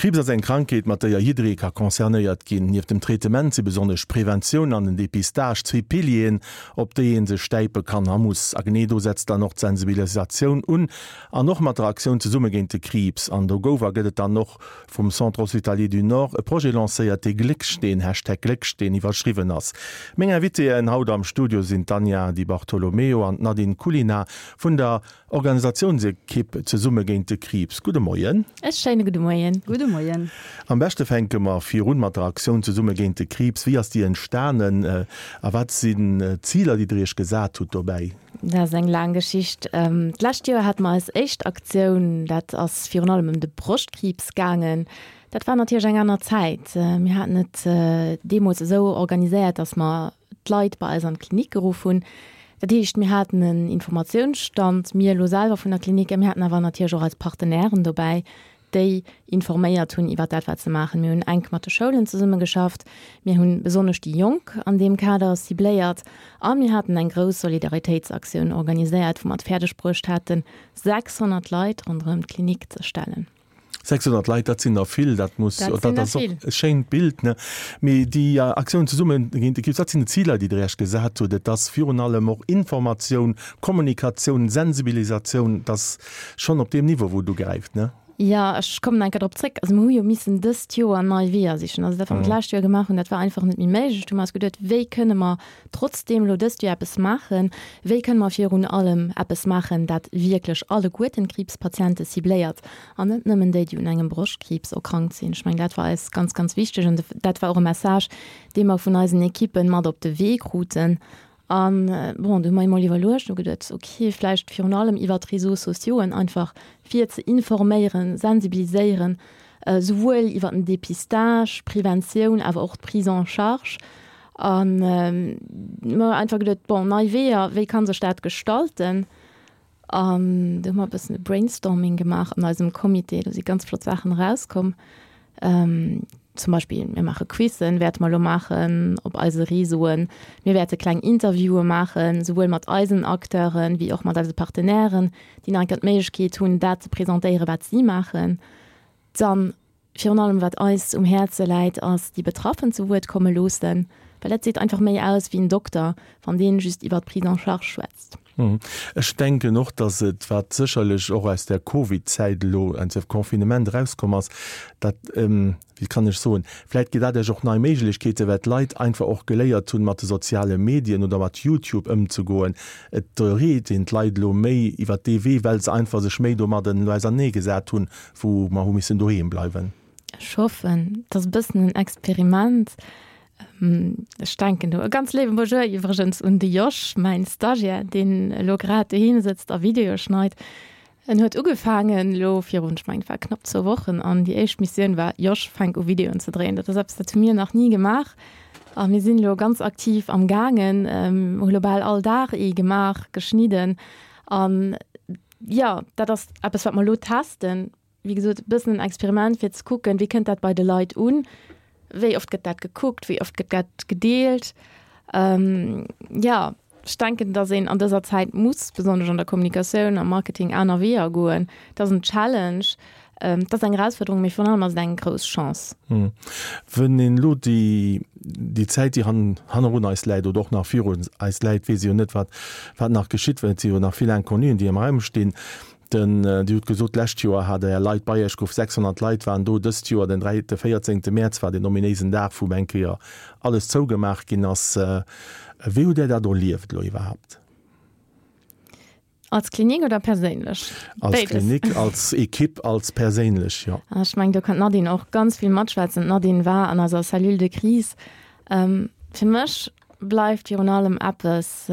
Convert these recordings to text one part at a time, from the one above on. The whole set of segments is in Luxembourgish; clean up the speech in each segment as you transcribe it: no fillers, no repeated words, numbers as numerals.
Kriibs ass eng Krankheet, mat déier jidderee ka concernéiert ginn. Nieft dem Traitement si besonnesch d'Preventioun an den Depistage zwee Pilieren, op déi ee sech stäipe kann a muss. A genee do setzt dann och d'Sensibilisatioun un, an och mat der Aktioun Zesumme géint de Kriibs. An do gouf a gëtt et dann och vum Centre Hospitalier du Nord e Projet lancéiert, dee Gléckssteen, Hashtag Gléckssteen, iwwerschriwwen ass. Meng Invitéen haut am Studio sinn d'Anja Di Bartolomeo an d'Nadine Culina vun der Organisatiounsekipp Zesumme géint de Kriibs. Gudde Moien. E schéine gudde Moien. Gudde Moien. Am beschte fänke mer virun mat der Aktioun Zesumme géint de Kriibs. Wéi ass déi entstanen a wat sinn d'Ziler, déi Der Iech gesat hutt dobäi? Dat ass eng laang Geschicht. D'lescht Joer hate mer eis éischt Aktioun, dat ass virun allem ëm de Broschtkriibs gaangen. Dat war natierlech eng aner Zäit. Mir haten et deemools esou organiséiert, datt mer d'Leit bei eis an d'Klinik geruff hunn. Dat heescht, mir haten en Informatiounsstand, mir elo selwer vun der Klinik, a mir haten awer natierlech och eis Partenairen dobäi, déi informéiert hunn iwwer dat, wat se maachen. Mir hunn enk mat de Schoulen zesummegeschafft, mir hunn besonnesch déi Jonk an deem Kader cibléiert a mir haten eng grouss Solidaritéitsaktioun organiséiert, wou mer et fäerdeg bruecht haten, 600 Leit ronderëm d'Klinik ze stellen. 600 Leit, dat sinn der vill, dat muss, Dat sinn dat der ass och vill. e schéint Bild, ne? Mee déi Aktioun Zesumme géint de Kriibs, wat sinn d'Ziler, déi Der Iech gesat hutt? Et ass virun allem och Informatioun, Kommunikatioun, Sensibilisatioun, et ass schonn op deem Niveau, wou et ugräift, ne? Jo, ech kommen eng Kéier drop zréck. Also mir hu jo missen dëst Joer nei Weeër sichen. Also dat, wat mer d'lescht Joer gemaach hunn, dat war einfach net méi méiglech. Du hu mer eis geduet, wéi kënne mer trotzdeem elo dëst Joer eppes maachen? Wéi kënne mer virun allem eppes maachen, dat wierklech alleguerten d'Kriibspatiente cibléiert an net nëmmen déi, déi un engem Broschtkriibs erkrankt sinn? Ech mengen, dat war eis ganz, ganz wichteg an dat war och e Message, dee mer vun eisen Ekippen mat op de Wee kruten. An bon, du hu mer emol iwwerluecht, hu geduet, ok, vläicht virun allem iwwer d'Réseaux sociauxen einfach fir ze informéieren, sensibiliséieren, souwuel iwwer den Dépistage, d'Preventioun, awer och d'Prise en charge. An mer einfach geduet, bon, nei Weeër, wéi ka sech dat gestalten? An do hu mer e bëssen e Brainstorming gemaach an eisem Comité. Do si ganz flott Saachen erauskomm. Zum Beispill, mir maache Quizzen, wäerte mer elo maachen op eise Réseauen. Mir wäerte kleng Interviewe maachen, souwuel mat eisen Acteuren, wéi och mat eise Partenairen, déi nach eng Kéier d'Méiglechkeet hunn, dat ze presentéieren, wat si maachen. Dann Virun allem wat eis um Häerze läit, ass déi Betraffen zu Wuert komme loossen, well dat seet einfach méi aus wéi en Dokter, wann deen just iwwert d'Prise en charge schwätzt. Ech denken och, datt et, wat sécherlech och aus der Covid-Zäit elo, aus dem Confinement erauskomm ass, dat, wéi kann ech soen, vläicht gëtt dat Iech och nei Méiglechkeeten, well d'Leit einfach och geléiert hunn, mat de soziale Medien oder mat YouTube ëmzegoen. Et reet een d'Leit elo méi iwwert dee Wee, well se einfach sech méi domadden elo auserneegesat hunn, wou mer hu missen doheem bleiwen. Ech hoffen, et ass e bëssen en Experiment. Ech denken do e ganz léiwe Bonjour iwwregens un de Josh, mäin Stagiaire, deen elo grad doheem sëtzt a Videoe schneit. En huet ugefaangen elo virun, ech mengen et war knapp zwou Wochen, an déi éischt Missioun war, Josh, fänk u Videoen ze dréien. Dat ass eppes, dat hu mir nach ni gemaach a mir sinn elo ganz aktiv am gaangen, hu lo bal all Dag ee gemaach, geschnidden an Jo, dat ass eppes, wat mer elo testen. Wéi gesot, e bëssen en Experiment, fir ze kucken, wéi kënnt dat bei de Leit un, wéi oft gëtt dat gekuckt, wéi oft gëtt dat gedeelt. Jo, ech denken, datt een an dëser Zäit muss, besonnesch an der Kommunikatioun, am Marketing, aner Weeër goen. Et ass en Challenge, Et ass eng Erausfuerderung, mee virun allem ass et eng grouss Chance. Wann een elo déi Zäit, déi hannerun eis läit oder och nach virun eis läit, weess ee jo net, wat nach geschitt, well et si jo nach vill Inconnuen, déi am Raum stinn. Dir hutt gesot, d'lescht Joer hat Der Leit bei Iech geruff, 600 Leit waren do. Dëst Joer, den 14. Mäerz war deen ominéisen Dag, wou eng Kéier alles zougemaach ginn ass. Wéi hutt Där dat erlieft elo iwwerhaapt? Als Klinik oder perséinlech? Als Béides. Klinik, als Ekipp, als perséinlech, jo. Ech mengen, do kann d'Nadine och ganz vill matschwätzen. D'Nadine war an eiser Cellule de crise. Fir mech bleift virun allem eppes,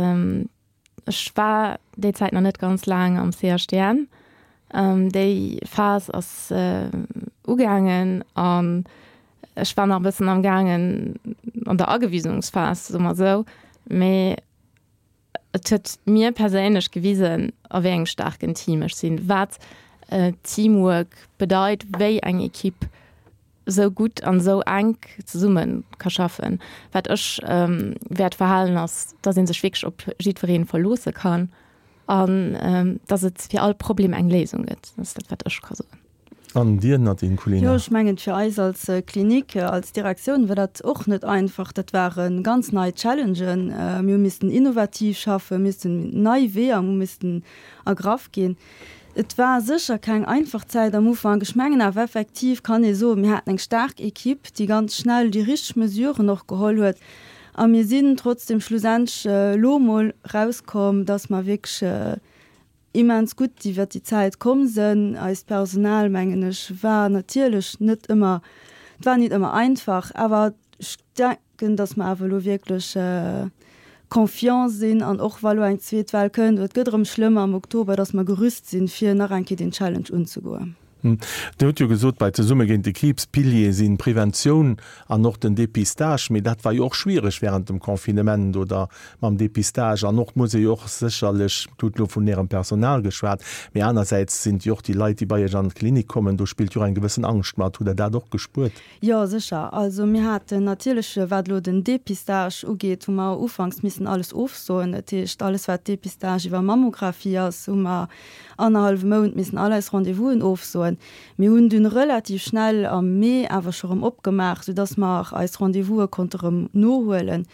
Ech war déi Zäit nach net ganz laang am CHDN. Déi Phas ass ugaangen an ech war nach e bëssen am gaangen an der Agewisungsphas, soe mer esou. Mee Et huet mir perséinlech gewisen, a wéi engem staarken Team ech sinn, wat Teamwork bedeit, wéi eng Ekipp esou gutt an esou enk zesumme ka schaffen. Wat ech wäert verhalen, ass, dass ee sech wierklech op jiddweree verloosse kann an dass et fir all Problem eng Léisung gëtt. Dat ass dat, wat ech ka soen. An Dir, Nadine Culina? Jo, ech mengen, fir eis als Klinik, als Direktioun war dat och net einfach. Dat ware ganz nei Challengen. Mir hu missten innovativ schaffen, missten nei Weeër hu missten ergraff ginn. Et war sécher keng einfach Zäit am Ufank. Ech mengen awer effektiv kann ee soen, mir haten eng staark Equipe, déi ganz schnell déi richteg Mesuren och geholl huet. A mir sinn trotzdeem schlussendlech elo emol erauskomm, dass mer wierklech immens gutt iwwert déi Zäit komm sënn. Eist Personal, mengen ech, war natierlech net ëmmer, et war nit ëmmer einfach, awer ech denken, datt mer awer elo wierklech confiant sinn an och wa lo eng zweet Well kënnt oder et gëtt erëm schlëmmer am Oktober, datt mer gerüst sinn, fir nach eng Kéier deen Challenge unzegoen. Dir hutt jo gesot, bei Zesumme géint de Kriibs, Piliere sinn d'Preventioun an och den Dépistage. Mee dat war jo och schwiereg während dem Confinement oder mam Dépistage. An och muss ee jo och sécherlech, Dir hutt elo vun Ärem Personal geschwat, mee anersäits sinn et jo och déi Leit, déi bei Iech an d'Klinik kommen, do spillt jo och eng gewëssen Angscht mat. Hutt Der dat och gespuert? Jo, sécher. Also mir haten natierlech, wat elo den Dépistage ugeet, hu mer ufanks missen alles ofsoen. Dat heescht, alles wat Dépistage iwwer Mammographie ass, hu mer annerhallwe Mount missen all eis Rendez-vousen ofsoen. Mir hunn dunn relativ schnell am Mee awer scho rëm opgemaach, soudass mer eis Rendez-vouse konnte rëm nohuelen.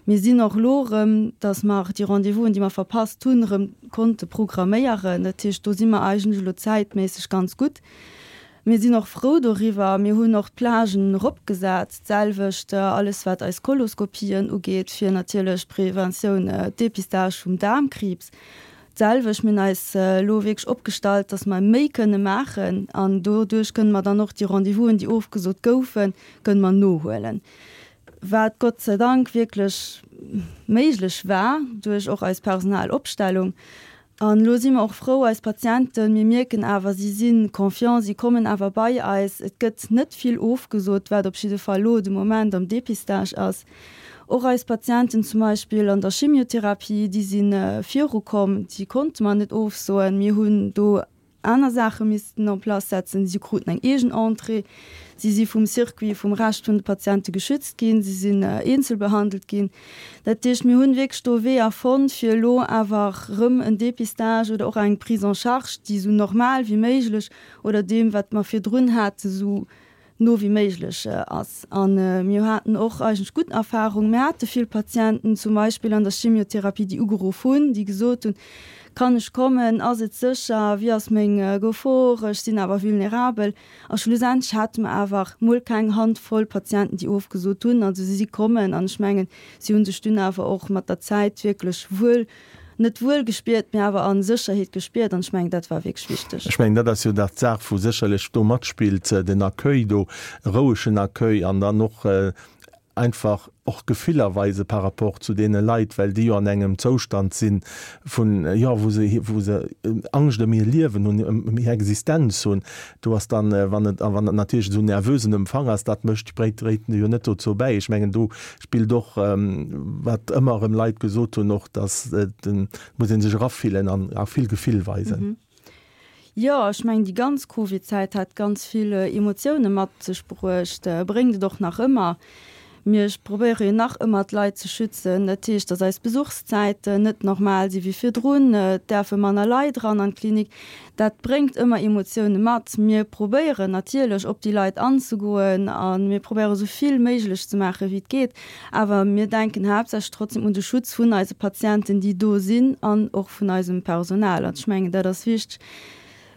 Mir sinn och elo erëm, dass mer déi Rendez-vousen, déi mer verpasst hunn, erëm konnte programméieren. Dat heescht, do si mer eigentlech elo zäitméisseg ganz gutt. Mir sinn och frou doriwwer. Mir hunn och d'Plagen eropgesat, d'selwecht alles wat eis Koloskopien ugeet, fir natierlech d'Preventioun, d'Depistage vum Daarmkriibs. D'selwecht, mir hunn eis elo wierklech opgestallt, dass mer méi kënne maachen an doduerch kënne mer dann och déi Rendez-vousen, déi ofgesot goufen, kënne mer nohuelen. Wat Gott sei Dank wierklech méiglech war duerch och eis Personalopstellung. An elo si mer och frou, eis Patienten, mir mierken awer, si si confiant, si kommen awer bei eis. Et gëtt net vill ofgesot, wat op jidde Fall elo de Moment am Dépistage ass. Och eis Patienten zum Beispill an der Chimiotherapie, déi si virukomm, déi konnte mer net ofsoen. Mir hunn do aner Saache missten en place setzen. Si kruten eng eegen Entrée, si si vum Circuit, vum Rescht vun de Patiente geschützt ginn, si sinn eenzel behandelt ginn. Dat heescht, mir hunn wierklech do Weeër fonnt, fir elo awer erëm en Dépistage oder och eng Prise en charge, déi esou normal wéi méiglech oder deem, wat mer virdrun haten, esou no wéi méiglech ass. A mir haten och eigentlech gutt Erfahrungen. Mir hate vill Patienten zum Beispill an der Chemiotherapie, déi ugeruff hunn, déi gesot hunn, Kann ech kommen? Ass et sécher? Wéi ass meng Gefor? Ech sinn awer vulnerabel. A schlussendlech hate mer awer mol keng Hand voll Patienten, déi ofgesot hunn. Also si si kommen an ech mengen, si hu sech dunn awer och mat der Zäit wierklech wuel net wuel gespiert, mee awer a Sécherheet gespiert an ech mengen, dat war wierklech wichteg. Ech mengen, dat ass jo dat d'Saach, wou sécherlech do matspillt, den Accueil do, e rouegen Accueil an dann och einfach och Gefiller weise par rapport zu deene Leit, well déi jo an engem Zoustand si vun, jo, wou se, wou se Angscht ëm hir Liewen hunn, ëm hir Existenz hunn. Do ass dann, wann et, a wann et natierlech esou nervösen Empfang ass, dat mécht, dréit jo net dozou bäi. Ech mengen, do spillt och, wat ëmmer erëm Leit gesot hunn, och dass et muss ee sech erafillen an a vill Gefill weisen. Jo, ech mengen déi ganz Covid-Zäit hat ganz vill Emotioune mat sech bruecht, bréngt et och nach ëmmer. Mir probéiere jo nach ëmmer d'Leit ze schützen. Dat heescht, datt eis Besuchszäiten net normal si wéi virdrun, et däerfe manner Leit eran an d'Klinik. Dat bréngt ëmmer Emotioune mat. Mir probéieren natierlech op déi Leit anzegoen a mir probéiere sou vill méiglech ze maache wéi et geet. Awer mir denken haaptsächlech trotzdem un de Schutz vun eise Patienten, déi do sinn an och vun eisem Personal. An ech mengen, dat ass wichteg,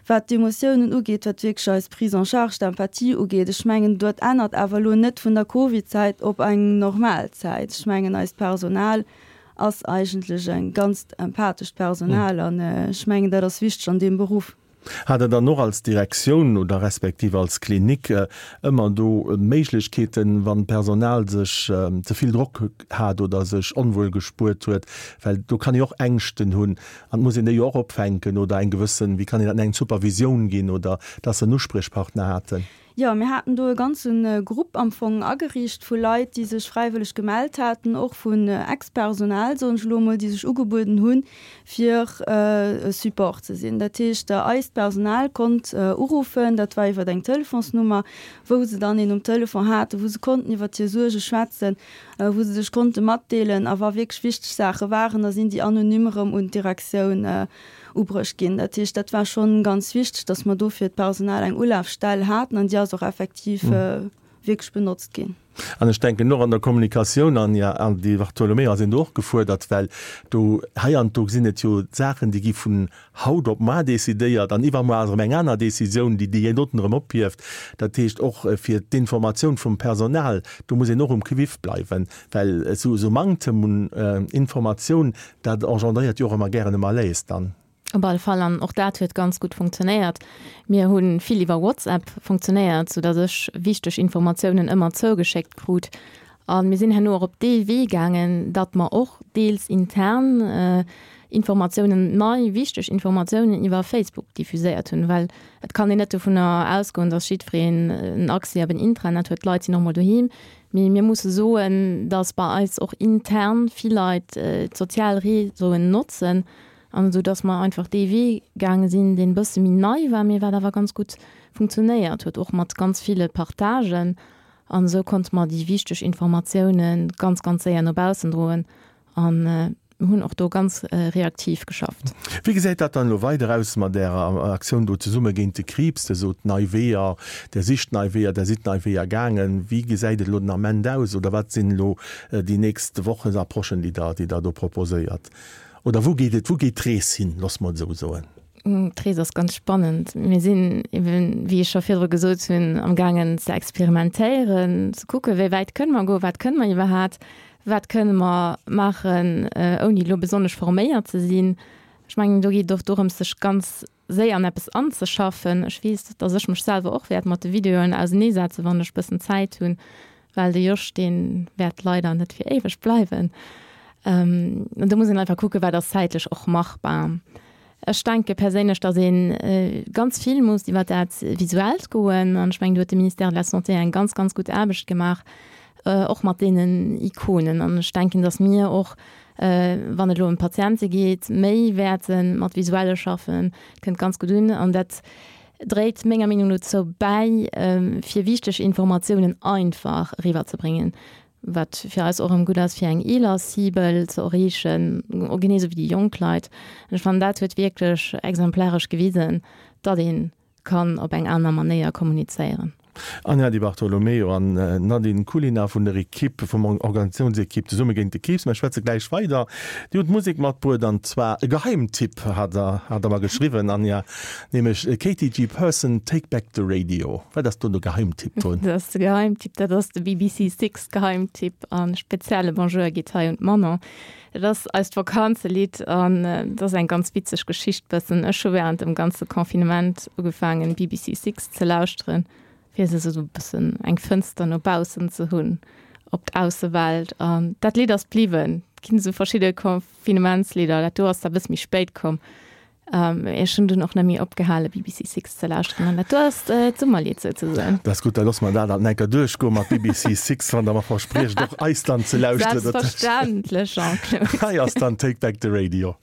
wat d'Emotiounen ugeet, wat wierklech eis Prise en charge, d'Empathie ugeet. Ech mengen, dat ännert awer elo net vun der Covid-Zäit op eng normal Zäit. Ech mengen, eist Personal ass eigentlech e ganzt empathescht Personal an ech mengen, dat ass wichteg an deem Beruff. Hat Der dann och als Direktioun oder respektiv als Klinik ëmmer do Méiglechkeeten, wann d'Personal sech ze vill Drock hat oder sech onwuel gespuert huet, well do kann ee och Ängschten hunn an et muss een déi jo och opfänken oder eng gewëssen, wéi kann een dat nennen, Supervisioun ginn oder dass se en Uspriechpartner haten? Jo, mir haten do e ganze Grupp am Fong ageriicht vu Leit, déi sech fräiwëlleg gemellt haten, och vun Ex-Personal, soen ech elo emol, déi sech ugebueden hunn, fir e Support ze sinn. Dat heescht, eist Personal konnt uruffen, dat war iwwer eng Telefonsnummer, wou se dann een um Telefon haten, wou se konnten iwwer hir Suerge schwätzen, wou se sech konnte matdeelen. A wa wierklech wichteg Saache waren, da sinn déi anonym erëm un d'Direktioun. ubruecht ginn. Dat heescht, dat war schonn ganz wichteg, dass mer do fir d'Personal eng Ulafstell haten an déi ass och effektiv wierklech benotzt ginn. An ech denken och an der Kommunikatioun, an jo, an Di Bartolomeo ass een do och gefuerdert, well do heianddo sinn et jo Saachen, déi gi vun haut op mar decidéiert an iwwermuer ass erëm eng aner Décisioun, déi déi doten erëm ophieft. Dat heescht och fir d'Informatioun vum Personal, do muss een och um Quiff bleiwen, well esou Manktem un Informatioun, dat engendréiert jo och ëmmer gären e Malaise dann. Op alle Fall, an och dat huet ganz gutt funktionéiert. Mir hu vill iwwer WhatsApp funktionéiert, soudatt ech wichteg Informatiounen ëmmer zougeschéckt krut. A mir sinn herno och op dee Wee gaangen, datt mer och deels intern Informatiounen, nei wichteg Informatiounen iwwer Facebook diffuséiert hunn, well et kann een net dovunner ausgoen, datt jiddwereen en Accès op en Intranet huet. D'Leit sinn och mol doheem. Mee mir musse soen, datt bei eis och intern vill Leit d'sozial Réseauen notzen An esou dass mer einfach dee Wee gaange sinn, deen e bësse méi nei war, mee wat awer ganz gutt funktionéiert huet, och mat ganz ville Partagen. An esou konnte mer déi wichteg Informatioune ganz, ganz séier no baussen droen an hunn och do ganz reaktiv geschafft. Wéi gesäit dat dann elo weider aus mat Ärer Aktioun do Zesumme géint de Kriibs? Der sot nei Weeër, Der sicht nei Weeër, Der sidd nei Weeër gaangen. Wéi gesäit et elo den Ament aus oder wat sinn elo déi nächst Wochen, Approchen, déi Der, déi Der do proposéiert? Oder wou geet et, wou geet d'Rees hin, loosse mer et esou soen? D'Rees ass ganz spannend. Mir sinn eben, wéi ech scho virdru gesot hunn, am gaangen ze experimentéieren, ze kucken, wéi wäit kënne mer goen, wat kënne mer iwwerhat, wat kënne mer maachen, ouni elo besonnesch forméiert ze sinn. Ech mengen, do geet et och dorëms, sech ganz séier an eppes anzeschaffen. Ech weess, dass ech mech selwer och wäert mat de Videoen auseneesetzen, wann ech bëssen Zäit hunn, well de Josh, dee wäert leider net fir éiweg bleiwen. An do muss een einfach kucken, wat ass zäitlech och machbar. Ech denke perséinlech, dass ee ganz vill muss iwwer dat Visuellt goen. An ech mengen, do huet de Ministère de la Santé eng ganz, ganz gutt Aarbecht gemaach, och mat deenen Ikonen. An ech denken, dass mir och wann et elo ëm d'Patiente geet, méi wäerte mat Visuelle schaffen. Dat kënnt ganz gutt un an dat dréit menger Meenung no dozou bäi, fir wichteg Informatiounen einfach eriwwerzebréngen, wat fir eis och erëm gutt ass, fir eng eeler Cible ze erreechen, genee esou wéi déi jonk Leit. An ech fannen, dat huet wierklech exemplaresch gewisen, datt ee kann op eng aner Manéier kommunizéieren. Anja Di Bartolomeo an Nadine Culina vun der Equipe, vum Organisatiounsequipe Zesumme géint de Kriibs. Mer schwätze gläich weider. Dir hutt Musek matbruet an zwar e Geheimtipp hat der, hat der mer geschriwwen, Anja, nämlech Katy G. Person, Take Back the Radio. Wat ass do de Geheimtipp drun? Dat ass de Geheimtipp, dat ass de BBC Six Geheimtipp a spezielle Bonjour geet hei un d'Manon. Et ass eist Vakanzelidd an et ass eng ganz witzeg Geschicht bëssen. Ech hu während dem ganze Confinement ugefaangen BBC Six ze lauschteren, fir se esou bëssen eng Fënster no baussen ze hunn op d'Aussewelt an dat Lidd ass bliwwen. Et ginn esou verschidde Confinementslidder, dat do ass da bësse méi spéit komm. Ech hunn dunn och net méi opgehale BBC Six ze lauschteren an dat do ass d'Summerlidd souzesoen. Dat ass gutt, da loosse mer dat alt enker duerchgoe mat BBC Six, wann Der mer verspriecht och eis dann ze lauschteren. Selbstverständlech, Jean-Claude. Hei ass dann Take Back the Radio.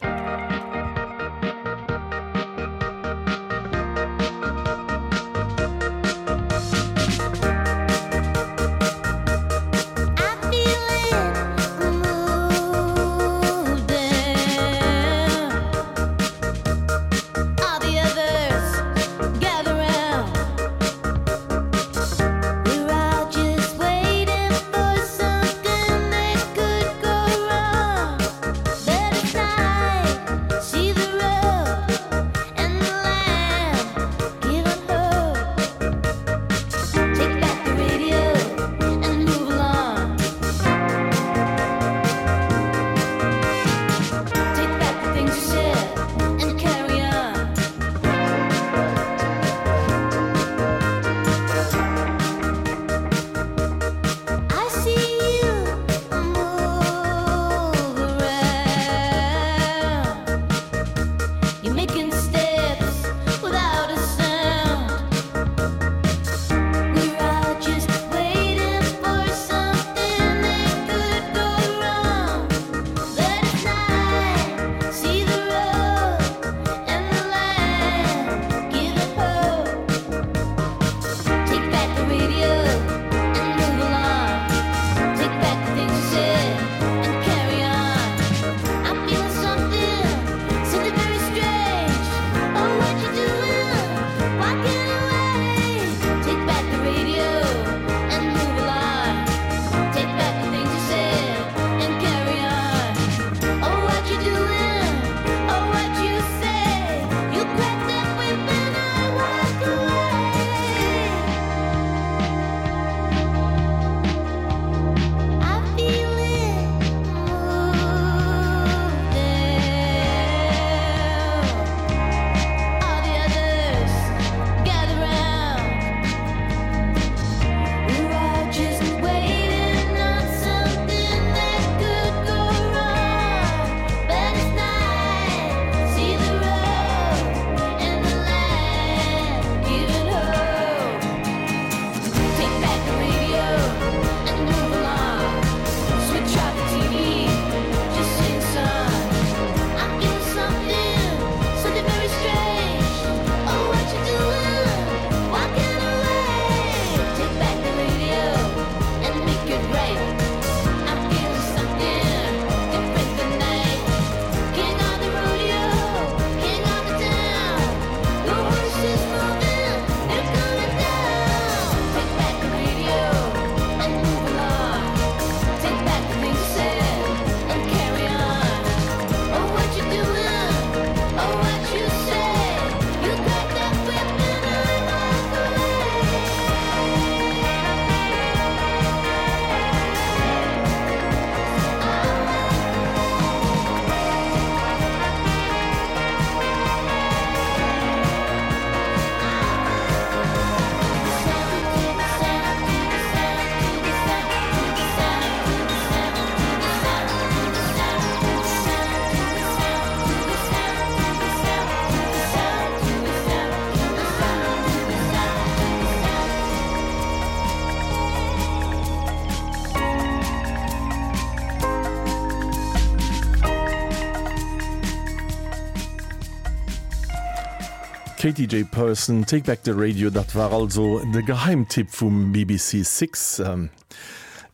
Katie J. Person, Take Back the Radio, dat war also de Geheimtipp vum BBC Six.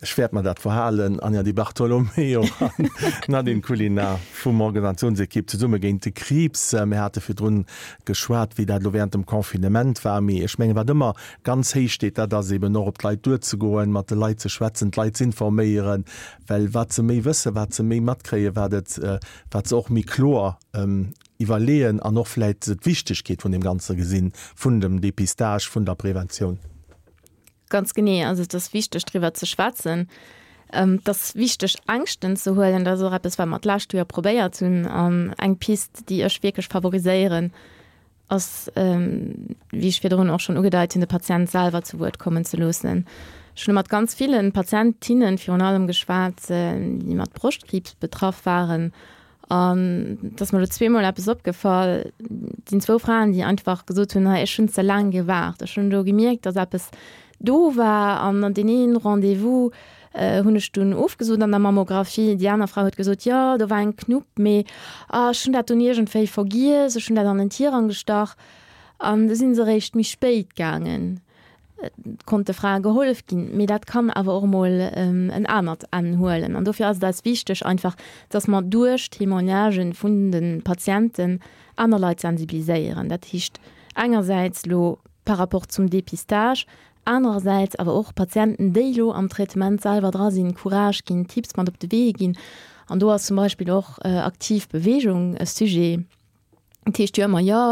Ech wäert mer dat verhalen. Anja Di Bartolomeo an Nadine Culina vum Organisationsekipp Zesumme géint de Kriibs. Mir hate virdrun geschwat, wéi dat elo während dem Confinement war. Mee ech mengen, wat ëmmer ganz héich steet, dat ass eben och op d'Leit duerzegoen, mat de Leit ze schwätzen, d'Leit z'informéieren, well wat se méi wëssen, wat se méi matkréien, wat et, wat se och méi kloer iwwerleeën an och vläit d'Wichtegkeet vun deem Ganze gesinn, vun dem Dépistage, vun der Preventioun. Ganz genee. Also et ass wichteg driwwer ze schwätzen. Et ass wichteg Ängschten ze huelen. Dat ass och eppes wat mer d'lescht Joer probéiert hunn. An eng Pist déi ech wierklech favoriséieren, ass, wéi ech virdrun och schonn ugedeit hunn, de Patient selwer zu Wuert kommen ze loossen. Ech hunn mat ganz ville Patientinnen virun allem geschwat, déi mat Broschtkriibs betraff waren An et ass mer elo zweemol eppes opgefall, et sinn zwou Fraen, déi einfach gesot hunn, hei ech hunn ze laang gewaart, ech hunn do gemierkt, datt eppes do war an an deen een Rendez-vous hunn ech dunn ofgesot an der Mammographie. Déi aner Fra huet gesot, jo do war eng Knupp, mee ah ech hunn dat dunn iergendwéi vergiess, ech hunn dat an den Tirang gestach an du sinn se eréischt méi spéit gaangen. konnt de Frae gehollef ginn, mee dat kann awer och emol en anert Enn huelen. An dofir ass et eis wichteg einfach, dass mer duerch Témoignagen vun de Patienten aner Leit sensibiliséieren. Dat heescht engersäits elo par rapport zum Dépistage, anerersäits awer och Patienten, déi elo am Traitement selwer dra sinn, Courage ginn, Tipps mat op de Wee ginn. An do ass zum Beispill och aktiv Beweegung e Sujet. Et heescht jo ëmmer, jo,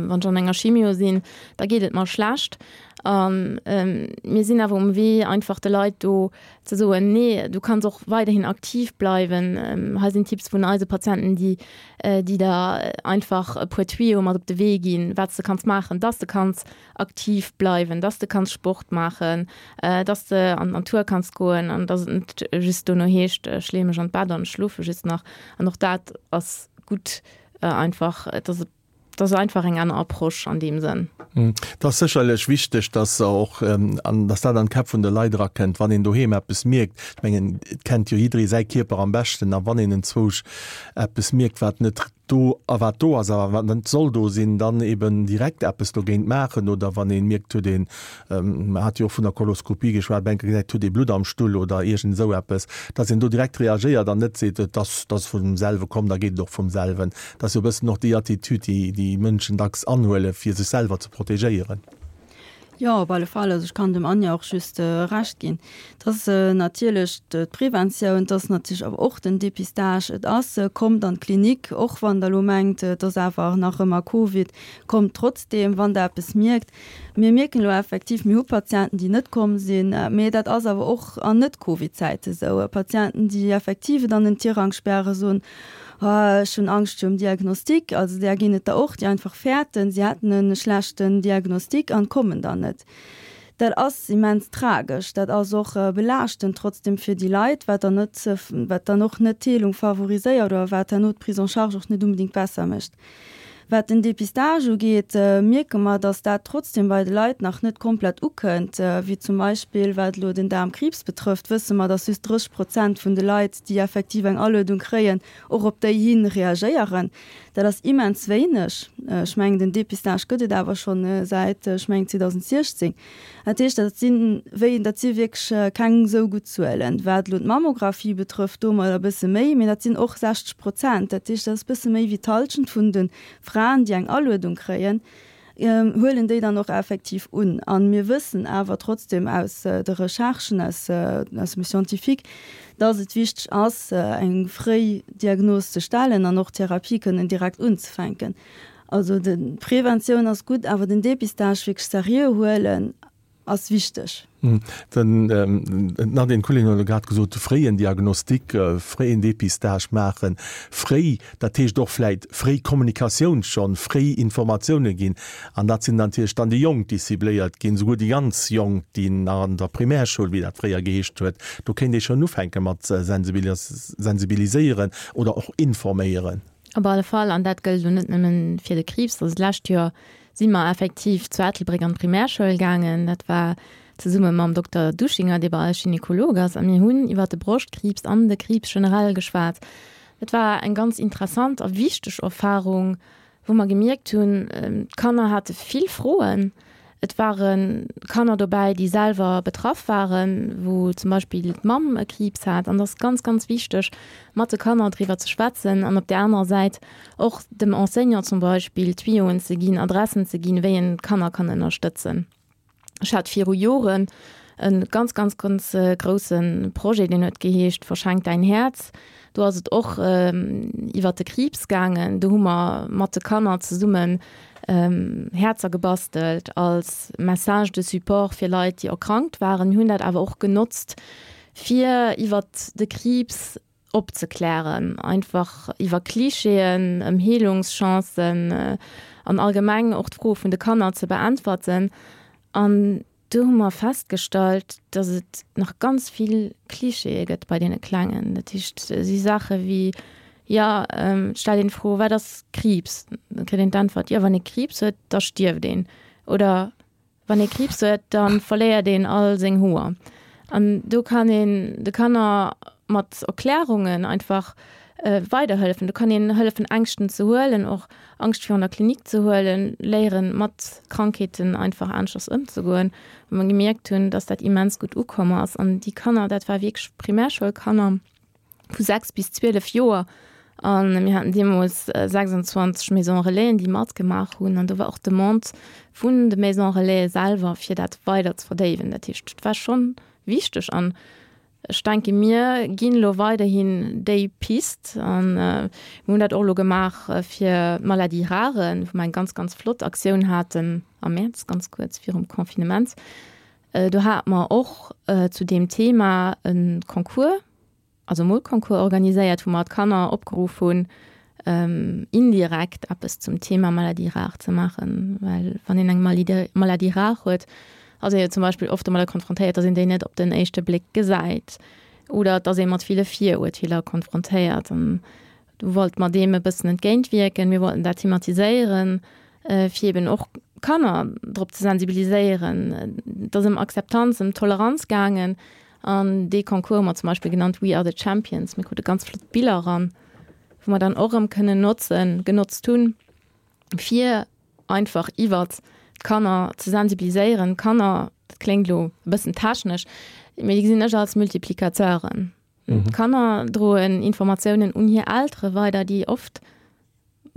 wann ech an enger Chimio sinn, da geet et mer schlecht. A mir sinn awer um Wee, einfach de Leit do ze soen, nee, du kanns och weiderhin aktiv bleiwen. Hei sinn Tipps vun eise Patienten, déi, déi der einfach e puer Tuyauxe mat op de Wee ginn, wat s de kanns maachen, dass de kanns aktiv bleiwen, dass de kanns Sport maachen, dass de an d'Natur kanns goen an dass et net just dono heescht, ech leeë mech an d'Bett an ech schlofe just nach. An och dat ass gutt. Einfach, et ass, et ass einfach eng aner Approche an deem Sënn. Et ass sécherlech wichteg, dass och, an dass dat an d'Käpp vun de Leit erakënnt, wann een doheem eppes mierkt. Ech mengen, et kennt jo jidderee säi Kierper am beschten. A wann een enzwousch eppes mierkt, wat net do a wat do ass a wat net soll do sinn, dann eben direkt eppes dogéint maachen. Oder wann ee mierkt, huet een Mer hate jo och vun der Koloskopie geschwat, bei enker gesäit, huet ee Blutt am Stull oder iergend esou eppes, dass een do direkt reagéiert an net seet, et ass, et ass vum selwe komm, da geet et och vum selwen. Dat ass jo e bëssen och déi Attitüd, déi déi Mënschen dacks anhuelen, fir sech selwer ze protegéieren. Jo, op alle Fall. Also ech kann dem Anja och just Recht ginn. Et ass natierlech d'Preventioun, et ass natierlech awer och den Dépistage. Et ass, kommt an d'Klinik, och wann Der elo mengt, et ass awer nach ëmmer Covid, kommt trotzdeem, wann Der eppes mierkt. Mir mierken elo effektiv, mir hu Patienten, déi net komm sinn, mee dat ass awer och an Net-Covid-Zäite sou. Patienten, déi effektiv et an den Tirang spären, soen, Oh, ech hunn Angscht virum Diagnostic. Also där ginn et der och, déi einfach fäerten, si hätten e schlechten Diagnostic an kommen dann net. Dat ass immens tragesch. Dat ass och belaaschtend trotzdem fir déi Leit, wat dann net, wat dann och net d'Heelung favoriséiert oder wat herno d'Prise en charge och net unbedéngt besser mécht. Wat den Dépistage ugeet, mierke mer, dass dat trotzdem bei de Leit nach net komplett ukënnt. Wéi zum Beispill wat elo den Daarmkriibs betrëfft, wësse mer, dass just 30 Prozent vun de Leit, déi effektiv eng Aluedung kréien, och op déi hi reagéieren. Dat ass immens wéineg. Ech mengen, den Dépistage gëtt et awer schonn säit, ech mengen, 2016. Dat heescht, dat sinn, wéi, dat si wierklech keng esou gutt Zuelen. Wat elo d'Mammographie betrëfft, do hu mer der e bësse méi, mee dat sinn och 60 Prozent. Dat heescht, dat ass e bësse méi wéi d'Hallschent vun de Fraen, déi eng Aluedung kréien, huelen déi dann och effektiv un. A mir wëssen awer trotzdem aus de Recherchen, aus, aus dem Scientifique, dass et wichteg ass, eng fréi Diagnos ze stellen an och d'Therapie kënnen direkt unzefänken. Also d'Preventioun ass gutt, awer den Dépistage wierklech seriö huelen ass wichteg. Den Nadine Kullin huet elo grad gesot, de fréien Diagnostic, fréien Dépistage maachen, fréi, dat heescht och vläit fréi Kommunikatioun schonn, fréi Informatioune ginn. An dat sinn natierlech dann déi Jonk, déi cibléiert ginn, souguer déi ganz Jonk, déi nach an der Primärschoul, wéi dat fréier geheescht huet, do kéint ee schonn ufänke mat sensibiliséieren oder och informéieren. Op alle Fall, an dat gëllt elo net nëmmen fir de Kriibs. Also d'lescht Joer si mer effektiv zu Ettelbréck an d'Primärschoul gaangen. Dat war zesumme mam Dokter Duschinger, dee bei eis Gynekolog ass, a mir hunn iwwer de Broschtkriibs an de Kriibs generell geschwat. Dat war eng ganz interessant a wichteg Erfarung. wou mer gemierkt hunn, d'Kanner hate vill Froen. Et ware Kanner dobäi, déi selwer betraff waren, wou zum Beispill d'Mamm e Kriibs hat. An et ass ganz, ganz wichteg, mat de Kanner driwwer ze schwätzen an op där anerer Säit och dem Enseignant zum Beispill Tuyauen ze ginn, Adressen ze ginn, wéi en d'Kanner kann ënnerstëtzen. Ech hat viru Joren e ganz, ganz, ganz grousse Projet, deen huet geheescht Verschenk däin Häerz. Do ass et och iwwert de Kriibs gaangen. Do hu mer mat de Kanner zesummen Häerzer gebastelt als Message de support fir Leit, déi erkrankt waren. Mir hunn dat awer och genotzt, fir iwwert de Kriibs opzeklären, einfach iwwer Klischeeën, ëm Heelungschancen an allgemeng och d'Froe vun de Kanner ze beäntwerten. An do hu mer festgestallt, dass et nach ganz vill Klischeeë gëtt bei deene Klengen. Dat heescht, si Saache wéi, jo, et stellt een d'Fro, wat ass Kriibs? Da kritt een d'Äntwert, jo, wann ee Kriibs huet, da stierft een. Oder Wann ee Kriibs huet, da verléiert een all seng Hoer. An do kann een de Kanner mat Erklärungen einfach weiderhëllefen. Do kann een hëllefen Ängschten ze huelen, och Angscht virun der Klinik ze huelen, léieren mat Krankheeten einfach aneschters ëmzegoen. Wou mer gemierkt hunn, dass dat immens gutt ukomm ass. An déi Kanner, dat war wierklech Primärschoulkanner. vu 6 bis 12 Joer an mir haten deemools 26 Maisons Relaisen, déi matgemaach hunn an do war och d'Demande vun de Maisons Relaisen selwer, fir dat weider ze verdéiwen. Dat heescht, et war schonn wichteg an ech denke mir ginn elo weiderhin déi Pist an mir hunn dat och elo gemaach fir d'Maladies rares, wou mer eng ganz, ganz flott Aktioun haten am Mäerz, ganz kuerz virum Confinement. Do hate mer och zu deem Thema e Concours, also e Molconcours organiséiert, wou mer d'Kanner opgeruff hunn, indirekt eppes zum Thema Maladie rare ze maachen. Well wann een eng Maladie rare huet, ass ee jo zum Beispill oft domadder konfrontéiert, datt een déi net op den éischte Bléck gesäit oder datt ee mat ville Virurteeler konfrontéiert. An Do wollte mer deem e bëssen entgéintwierken. Mir wollten dat thematiséieren, fir eben och Kanner drop ze sensibiliséieren. Et ass ëm Akzeptanz, ëm Toleranz gaangen. An dee Concours hu mer zum Beispill genannt We are the Champions. Mir krute ganz flott Biller eran, wou mer dann och erëm kënnen notzen, genotzt hunn, fir einfach iwwert d'Kanner ze sensibiliséieren. D'Kanner, dat kléngt elo e bëssen technesch, mee déi gesinn ech als Multiplicateuren. D'Kanner droen Informatiounen un hir Eltere weider, déi oft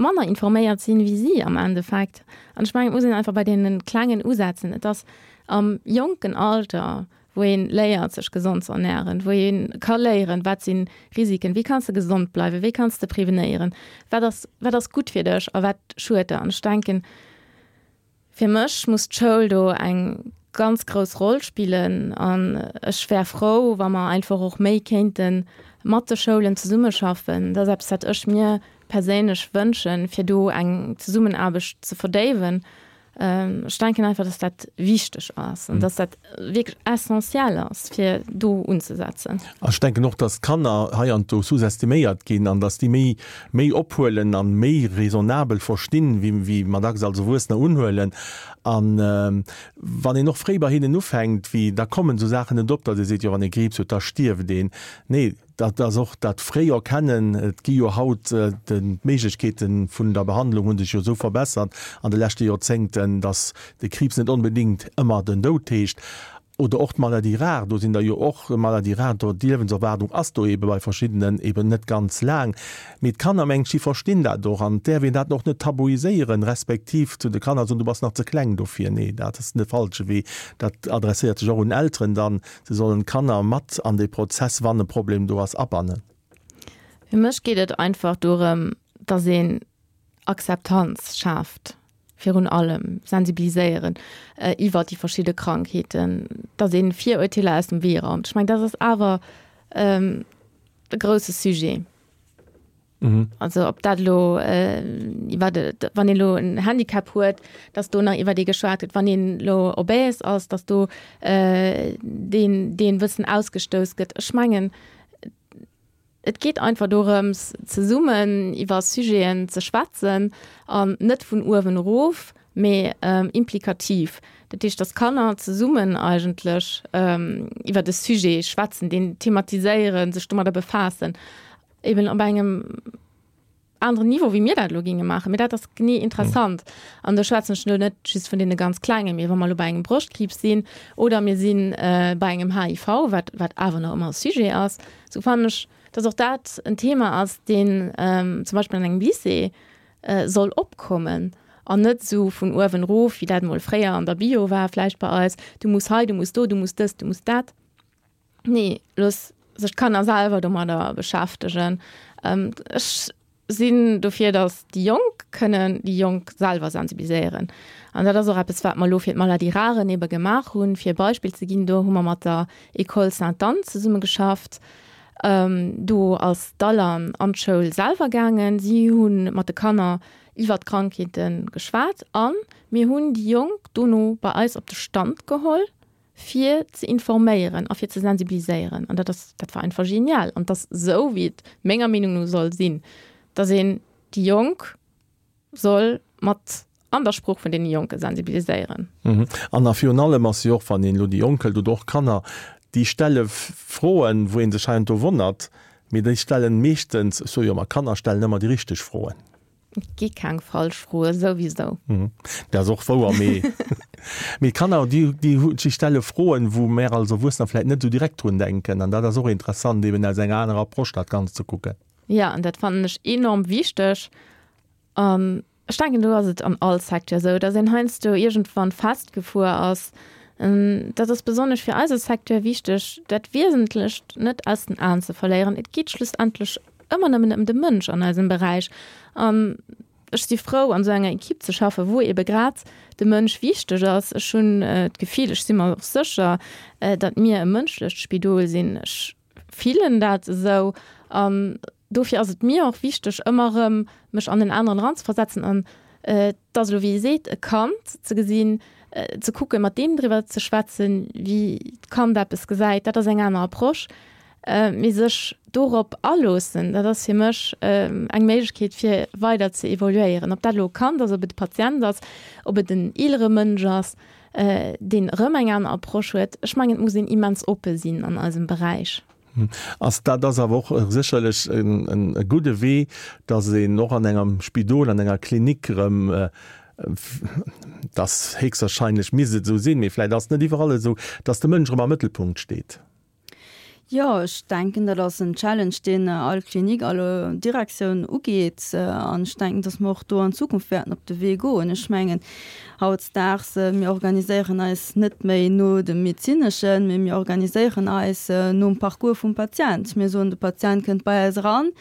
manner informéiert sinn, wéi si am Endeffekt. An ech mengen, et muss een einfach bei deene Klengen usetzen. Et ass am jonken Alter, wou ee léiert, sech gesond ze ernären, wou ee ka léieren, wat si Risiken, wéi kanns de gesond bleiwen, wéi kanns de prevenéieren, wat ass, wat ass gutt fir dech a wat schued der. An ech denken, Fir mech muss d'Schoul do eng ganz grouss Roll spillen an ech wär frou, wa mer einfach och méi kéinte mat de Schoulen zesummeschaffen. Dat ass eppes, wat ech mir perséinlech wënschen, fir do eng Zesummenaarbecht ze verdéiwen. Ech denken einfach, dass dat wichteg ass an dass dat wierklech essentiell ass, fir do unzesetzen. Ech denken och, dass d'Kanner heiansdo sous-estiméiert ginn an dass déi méi méi ophuelen an méi raisonnabel verstinn, wéi wéi mer dacks als Erwuessener unhuelen. An wann een och fréi bei hinnen ufänkt, wéi da kommen esou Saachen net op, datt ee seet, jo wann ee Kriibs huet, da stierft een. Nee, dat ass och dat fréi Erkennen. Et gi jo haut, d'Méiglechkeete vun der Behandlung hu sech jo esou verbessert an de leschte Joerzéngten, datt de Kriibs net onbedéngt ëmmer den Doud heescht. Oder och d'Maladie rare, do sinn der jo och Maladies rares, do d'Liewenserwaardung ass do eebe bei verschiddenen eeben net ganz laang. Mee d'Kanner, mengen ech, déi verstinn dat och an et däerf een dat och net tabuiséieren, respektiv zu de Kanner soen, du bass nach ze kleng dofir. Nee, dat ass de falsche Wee. Dat adresséiert sech och un Elteren dann, se sollen d'Kanner mat an dee Prozess, wann e Problem do ass, abannen. Fir mech geet et einfach dorëm, dass een Akzeptanz schaaft, virun allem sensibiliséieren iwwert déi verschidde Krankheeten, datt ee Virurteeler aus dem Wee raumt. Ech mengen, dat ass awer e grousse Sujet. Also ob dat elo iwwer, wann een elo en Handicap huet, datt do nach iwwer dee geschwat gëtt, wann een elo obèse ass, datt do deen, deen e bëssen ausgestouss gëtt. Ech mengen, Et geet einfach dorëms, zesummen iwwer Sujeten ze schwätzen an net vun uewen erof, mee implikativ. Dat heescht, dass d'Kanner zesummen eigentlech iwwer e Sujet schwätzen, deen thematiséieren, sech domadder befaassen, eben op engem. aneren Niveau, wéi mir dat elo géinge maachen, mee dat ass genee interessant. An do schwätzen ech elo net just vun deene ganz Klengen, mee wa mer elo bei engem Broschtkriibs sinn oder mir si bei engem HIV, wat, wat awer nach ëmmer e Sujet ass, esou fannen ech, dass och dat en Thema ass, deen zum Beispill an engem Lycée soll opkommen an net esou vun uewen erof, wéi dat emol fréier an der Bio war vläicht bei eis, du muss hei, du muss do, du muss dëst, du muss dat. Nee, looss sech d'Kanner selwer domadder beschäftegen. Ech sinn dofir, datt déi Jonk kënnen déi Jonk selwer sensibiliséieren. An dat ass och eppes, wat mer elo fir d'Maladies rares ebe gemaach hunn. Fir e Beispill ze ginn, do hu mer mat der École Sainte-Anne zesummegeschafft. Do ass d'Alan an d'Schoul selwer gaangen. Si hu mat de Kanner iwwer d'Krankheete geschwat a mir hunn déi Jonk dono bei eis op de Stand geholl, fir ze informéieren a fir ze sensibiliséieren. An dat ass, dat war einfach genial. An 't ass esou, wéi et menger Meenung no soll sinn, dass een déi Jonk soll mat an der Sprooch vun deene Jonke sensibiliséieren. An a virun allem ass jo och, wann een elo déi Jonk hëlt oder och Kanner, déi stelle Froen, wou ee sech heiansdo wonnert, mee déi stellen meeschtens, ech soe jo ëmmer, Kanner stellen ëmmer déi richteg Froen. Et gi keng falsch Froe souwisou. Dat ass och wouer, mee mee d'Kanner, déi déi déi stelle Froen, wou mär als Erwuessener vläicht net esou direkt drun denken. An dat ass och interessant, eben aus enger anerer Approche dat Ganzt ze kucken. Jo, an dat fannen ech enorm wichteg. An ech denken, do ass et an all Secteur esou, datt een heiansdo iergendwann festgefuer ass. Dat ass besonnesch fir eise Secteur wichteg, dat Wiesentlecht net aus den Aen ze verléieren. Et geet schlussendlech ëmmer nëmmen ëm de Mënsch an eisem Beräich. An ech si frou, an esou enger Equipe ze schaffen, wou ebe grad de Mënsch wichteg ass. Ech hunn d'Gefill, ech si mer och sécher, datt mir e mënschlecht Spidol sinn. Ech fillen dat esou. An dofir ass et mir och wichteg, ëmmer erëm mech an den aneren eranzeversetzen an et ass elo, wéi ee seet, e Kand ze gesinn, ze kucken, mat deem driwwer ze schwätzen, wéi d'Kand eppes gesäit, dat ass eng aner Approche. Mee sech dorop aloossen, dat ass fir mech eng Méiglechkeet, fir weider ze evoluéieren. Ob dat elo e Kand ass, ob et e Patient ass, ob et en eelere Mënsch ass, deen erëm eng aner Approche huet. Ech mengen, et muss een immens oppe sinn an eisem Beräich. Ass dat ass awer och sécherlech e gudde Wee, datt een och an engem Spidol, an enger Klinik erëm, dass héchstwahrscheinlech misst et esou sinn, mee vläicht ass et net iwwerall esou, datt de Mënsch erëm am Mëttelpunkt steet. Jo, ech denken, dat ass en Challenge, deen all Klinik, all Direktioun ugeet. An ech denken, dass mer och do an Zukunft wäerten op de Wee goen. Ech mengen, hautdesdaags, mir organiséieren eis net méi no dem Medezineschen, mee mir organiséieren eis nom Parcours vum Patient. Mir soen, de Patient kënnt bei eis eran,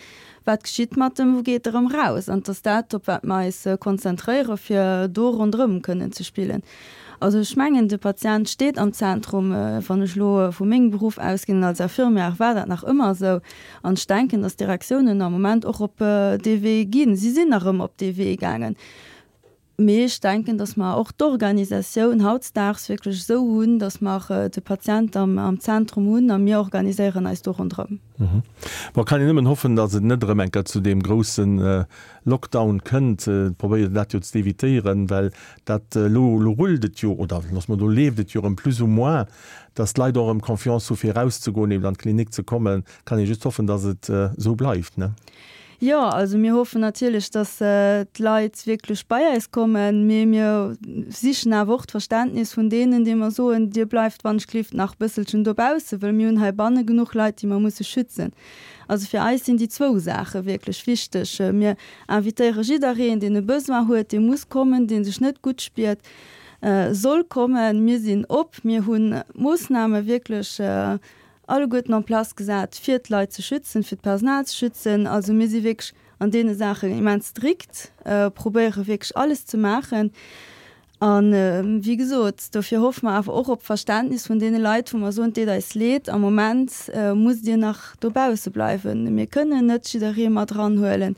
Wat geschitt mat em? Wou geet e rëm raus? An et ass dat, op wat mer eis konzentréieren, fir do ronderëm kënnen ze spillen. Also ech mengen, de Patient steet am Zentrum. Wann ech elo vu mengem Beruff ausginn als Infirmière, war dat nach ëmmer esou. An ech denken, datt d'Direktiounen am Moment och op dee Wee ginn. Si sinn erëm op dee Wee gaangen. Mee ech denken, datt mer och d'Organisatioun hautdesdaags wierklech esou hunn, datt mer de Patient am Zentrum hunn a mir organiséieren eis do ronderëm. Bon, kann een nëmmen hoffen, datt et net erëm eng Kéier zu deem grousse Lockdown kënnt. Et probéiert een dat jo ze evitéieren, well dat elo, elo rullt et jo, oder loosse mer, elo leeft et jo erëm plus ou moins, datt d'Leit och erëm Confiance hu fir erauszegoen, eben an d'Klinik ze kommen. Kann ee just hoffen, datt et esou bleift, ne? Jo, also mir hoffen natierlech, datt d'Leit wierklech bei eis kommen, mee mir sichen awer och d'Verständnis vun deenen, déi mer soen, Dir bleift wann ech gelift nach e bësselchen dobaussen, wëll mir hunn heibanne genuch Leit, déi mer musse schützen. Also fir eis sinn déi zwou Saache wierklech wichteg. Mir invitéiere jiddereen, deen e Besoin huet, dee muss kommen, dee sech net gutt spiert, soll kommen. Mir sinn op, mir hunn d'Moossname wierklech alleguerten en place gesat, fir d'Leit ze schützen, fir d'Personal ze schützen. Also mir si wierklech an deene Saachen immens strikt, probéiere wierklech alles ze maachen. A wéi gesot, dofir hoffe mer awer och op d'Verständnis vun deene Leit, wou mer soen, Et deet eis leed, am Moment musst Dir nach dobausse bleiwen. Mir kënnen net jidderee mat eranhuelen.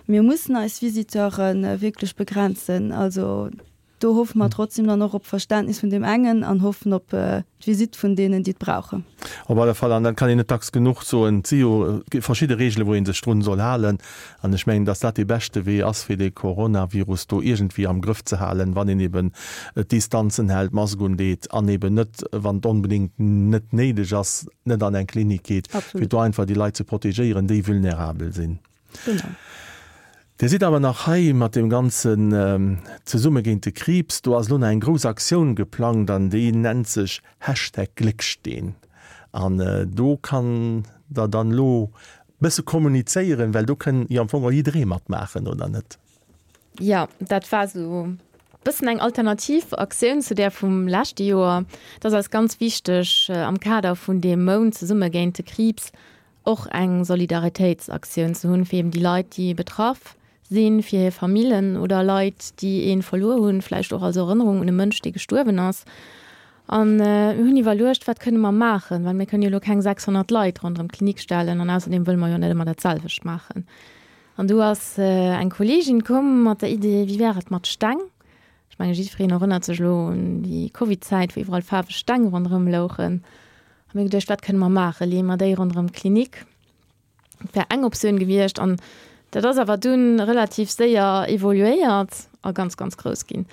Mir mussen eis Visiteure wierklech begrenzen. Also Do hoffe mer trotzdem dann och op Verständnis vun deem engen an hoffen op d'Visitt vun deenen, déi et brauchen. Op alle Fall, an dat kann een net dacks genuch soen, et si jo verschidde Reegelen, wou ee sech drun soll halen. An ech mengen, dass dat dee beschte Wee ass, fir dee Coronavirus do iergendwéi am Grëff ze halen, wann een eben d'Distanzen hält, d'Mask undeet an eben net, wann et onbedéngt net néideg ass, net an eng Klinik geet, fir do einfach déi Leit ze protegéieren, déi vulnerabel sinn. Genau. Dir sidd awer nach hei mat deem ganzen Zesumme géint de Kriibs. Do ass elo nach eng grouss Aktioun geplangt an déi nennt sech Hashtag Glécksteen. An do kann Der dann elo bësse kommunizéieren, well do kënn jo am Fong och jidderee matmaachen, oder net? Jo, dat war esou bëssen eng alternativ Aktioun zu där vum leschte Joer. Et ass eis ganz wichteg, am Kader vun deem Mount Zesumme géint de Kriibs och eng Solidaritéitsaktioun ze hunn, fir eben déi Leit, déi betraff sinn, fir hir Famillen oder Leit, déi ee verluer hunn, vläicht och als Erënnerung un e Mënsch, dee gestuerwen ass. A mir hunn iwwerluecht, wat kënne mer maachen, well mir kënnen jo elo keng 600 Leit ronderëm d'Klinik stellen an ausserdeem wëlle mer jo net ëmmer dat selwecht maachen. An du ass eng Kolleegin komm mat der Idee, wéi wär et mat Steng? Ech menge jiddwereen erënnert sech elo un déi Covid-Zäit, wou iwwerall faarweg Steng ronderëm louchen. A mir geduecht, wat kënne mer maachen? Leeë mer déi ronderëm d'Klinik? Dat wär eng Optioun gewiescht. An dat ass awer dunn relativ séier evoluéiert a ganz, ganz grouss ginn.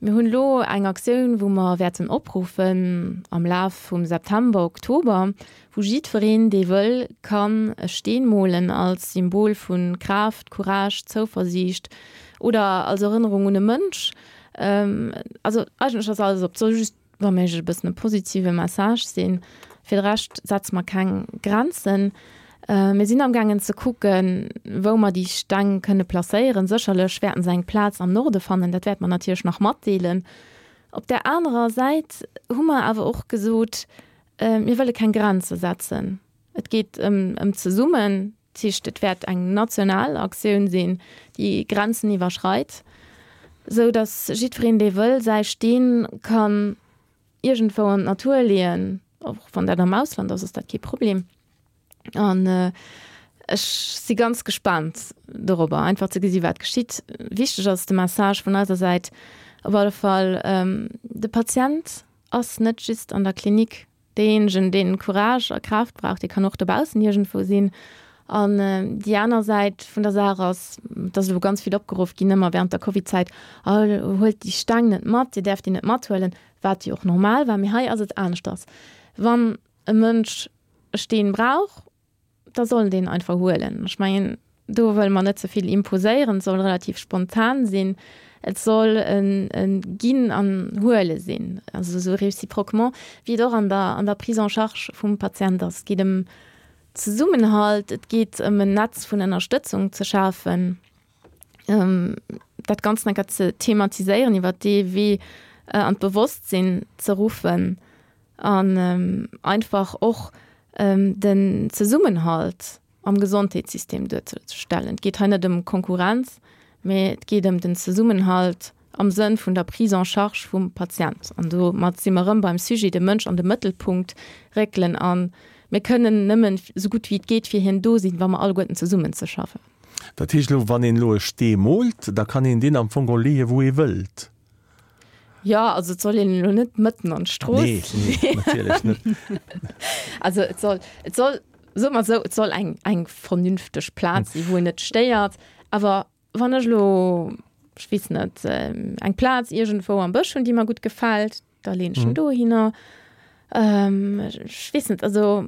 Mir hunn elo eng Aktioun, wou mer wäerten opruffen am Laf vum September, Oktober, wou jiddwereen, dee wëll, kann e Steen molen als Symbol vu Kraaft, Courage, Zouversiicht oder als Erënnerung un e Mënsch. Also eigentlech ass alles op. Et soll just wa méiglech e bëssen e positive Message sinn. Fir de Rescht setze mer keng Grenzen. Mir sinn amgaangen ze kucken, wou mer déi Steng kënne placéieren. Sécherlech wäerten se eng Plaz am Norde fannen, dat wäerte mer natierlech nach matdeelen. Op där anerer Säit hu mer awer och gesot, mir wëlle keng Grenze setzen. Et geet ëm zesummen, dat heescht, et wäert eng national Aktioun sinn, déi Grenzen iwwerschreit, esou datt jiddwereen, dee wëll, säi Steen kann iergendwou an d'Natur leeën, och wann dat am Ausland ass, ass dat kee Problem. An ech si ganz gespaant dorobber, einfach ze gesi wat geschitt. Wichteg ass de Message vun eiser Säit op alle Fall, de Patient ass net just an der Klinik Deejéinegen, deen Courage a Kraaft brauch, dee kann och dobaussen iergendwou sinn. An déi aner Säit vun der Saach ass, et ass elo ganz vill opgeruff ginn, ëmmer während der Covidzäit, Oh, huelt déi Steng net mat, Dir däerft déi net mathuelen, wat jo och normal war. Mee hei ass et aneschters. Wann e Mënsch e Steen brauch, da soll en deen einfach huelen. Ech mengen, do wëlle mer net ze vill imposéieren, et soll relativ spontan sinn, et soll e Ginn an Huele sinn, also esou réciproquement, wéi et och an der, an der Prise en charge vum Patient ass. Et geet ëm Zesummenhalt, et geet ëm en Netz vun Ënnerstëtzung ze schafen, dat Ganzt enker ze thematiséieren, iwwert dee Wee an d'Bewosstsinn ze ruffen. An einfach och den Zesummenhalt am Gesondheetssystem duerzestellen. Et geet hei net ëm Konkurrenz, mee et geet ëm den Zesummenhalt am Sënn vun der Prise en charge vum Patient. An domat si mer erëm beim Sujet, de Mënsch an de Mëttelpunkt réckelen. A mir kënnen nëmmen esou gutt wéi et geet fir hien do sinn, wa mer alleguerten zesummen ze schaffen. Dat heescht elo, wann een elo e Stee moolt, da kann een deen am Fong och leeë wou ee wëllt? Jo, also et soll een elo net mëtten an d'Strooss Nee, nee, natierlech net. Also et soll, et soll, soe mer esou, et soll eng, eng vernünfteg Plaz sinn, wou een net stéiert. Awer wann ech elo, ech weess net, eng Plaz iergendwou am Bësch hunn, déi mer gutt gefält, da leen ech en dohinner. Ech weess net, also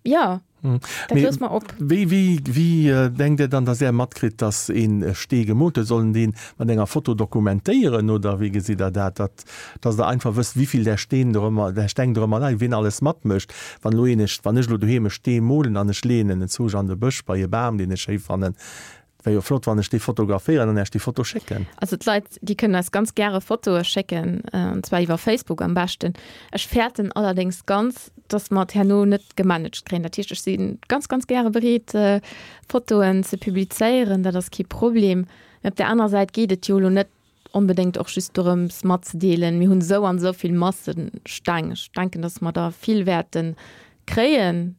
Jo, dat loosse mer op. Wéi, wéi, wéi denkt Dir dann, dass Är matkritt, dass een e Stee gemoolt huet? Soll en deen mat enger Foto dokumentéieren oder wéi gesitt Der dat, datt, dass Der einfach wësst, wéivill där Steen dorëmmer, där Steng dorëmmer leien, wien alles matmécht? Wann elo een, wann ech elo doheem e Stee molen an ech leeën en enzwousch an de Bësch bei e Bam, deen ech schéi fannen, Wär jo flott wann ech déi fotograféieren an Äech déi Foto schécken. Also d'Leit déi kënnen eis ganz gäre Fotoe schécken, an zwar iwwer Facebook am beschten. Ech fäerten allerdéngs ganz, dass mer et herno net gemanagt kréien. Dat heescht, ech si ganz, ganz gäre bereet Fotoen ze publizéieren, dat ass kee Problem. Mee op där anerer Säit geet et jo elo net onbedéngt och just dorëms matzedeelen, mir hunn esou an esou vill Massesteng. Ech denken, dass mer der vill wäerte kréien.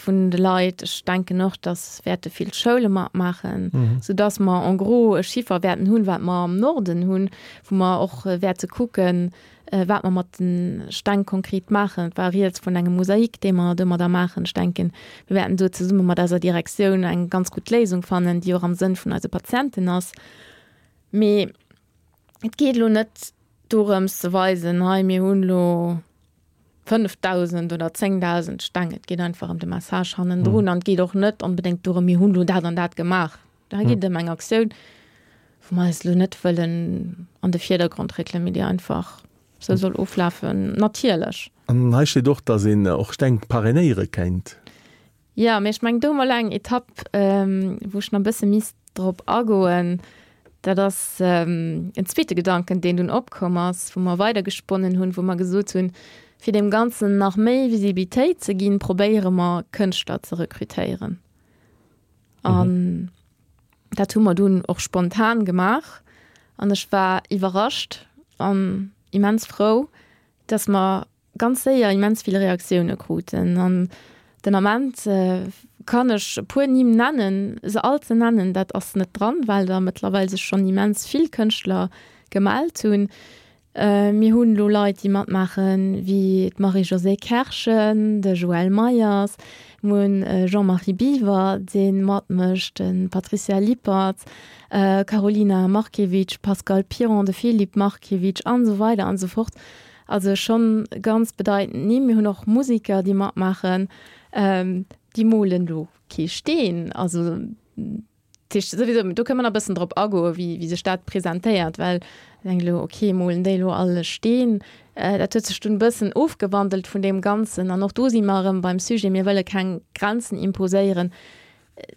vun de Leit. Ech denken och, dass wäerte vill Schoule matmaachen, soudass mer en gros e Chiffer wäerten hunn, wat mer am Norden hunn, wou mer och wäerte kucken, wat mer mat de Steng konkret maachen. Et war rieds vun engem Mosaik, dee mer domadder maachen. Ech denken, mir wäerten do zesumme mat eiser Direktioun eng ganz gutt Léisung fannen, déi och am Sënn vun eise Patienten ass. Mee et geet elo net dorëms ze weisen, hei mir hunn elo 5.000 oder 10.000 Steng. Et geet einfach ëm de Message hannendrun an et geet och net onbedéngt dorëm, mir hunn elo dat an dat gemaach. Hei geet et ëm eng Aktioun, wou mer eis elo net wëllen an de Virdergrond réckelen, mee déi einfach esou soll oflafen, natierlech. An hei steet och, dass een och Steng parrainéiere kéint. Jo, mee ech mengen, do hu mer elo eng Etapp, wou ech nach e bësse misst drop agoen. Dat ass en zweete Gedanken, deen dunn opkomm ass, wou mer weidergesponnen hunn, wou mer gesot hunn, fir deem Ganzen nach méi Visibilitéit ze ginn, probéiere mer, Kënschtler ze rekrutéieren. An dat hu mer dunn och spontan gemaach. An ech war iwwerrascht an immens frou, dass mer ganz séier immens vill Reaktioune kruten. An den Ament kann ech e puer Nimm nennen, se all ze nennen, dat ass net dran, well der mëttlerweil sech schonn immens vill Kënschtler gemellt hunn. Mir hunn elo Leit, déi matmaachen, wéi d'Marie-Josée Kerschen, de Joël Meyers, mir hunn Jean-Marie Biwer, dee matmécht, de Patricia Lippert, Karolina Markiewicz, Pascal Piron, de Philippe Markiewicz an esou weider an esou fort. Also schonn ganz bedeitend Nimm. Mir hunn och Musiker, déi matmaachen. Déi molen do kee Steen. Also dat heescht souwisou, do kënne mer nach e bëssen drop agoen, wéi, wéi sech dat presentéiert, well ech denken elo, okay, molen déi elo all e Steen? Dat huet sech dunn e bëssen ofgewandelt vun deem Ganzen. An och do si mer erëm beim Sujet, mir wëlle keng Grenzen imposéieren.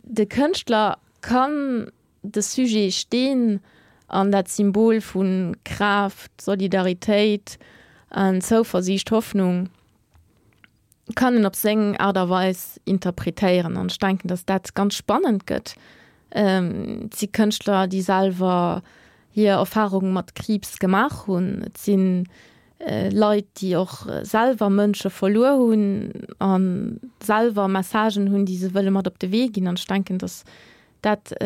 De Kënschtler kann De Sujet Steen an dat Symbol vu Kraaft, Solidaritéit an Zouversiicht, Hoffnung, kann en op seng Aart a Weis interpretéieren. An ech denken, datt dat ganz spannend gëtt. Et si Kënschtler, déi selwer hir Erfarung mat Kriibs gemaach hunn. Et si Leit, déi och selwer Mënsche verluer hunn a selwer Messagen hunn, déi se wëlle mat op de Wee ginn. An ech denken, datt dat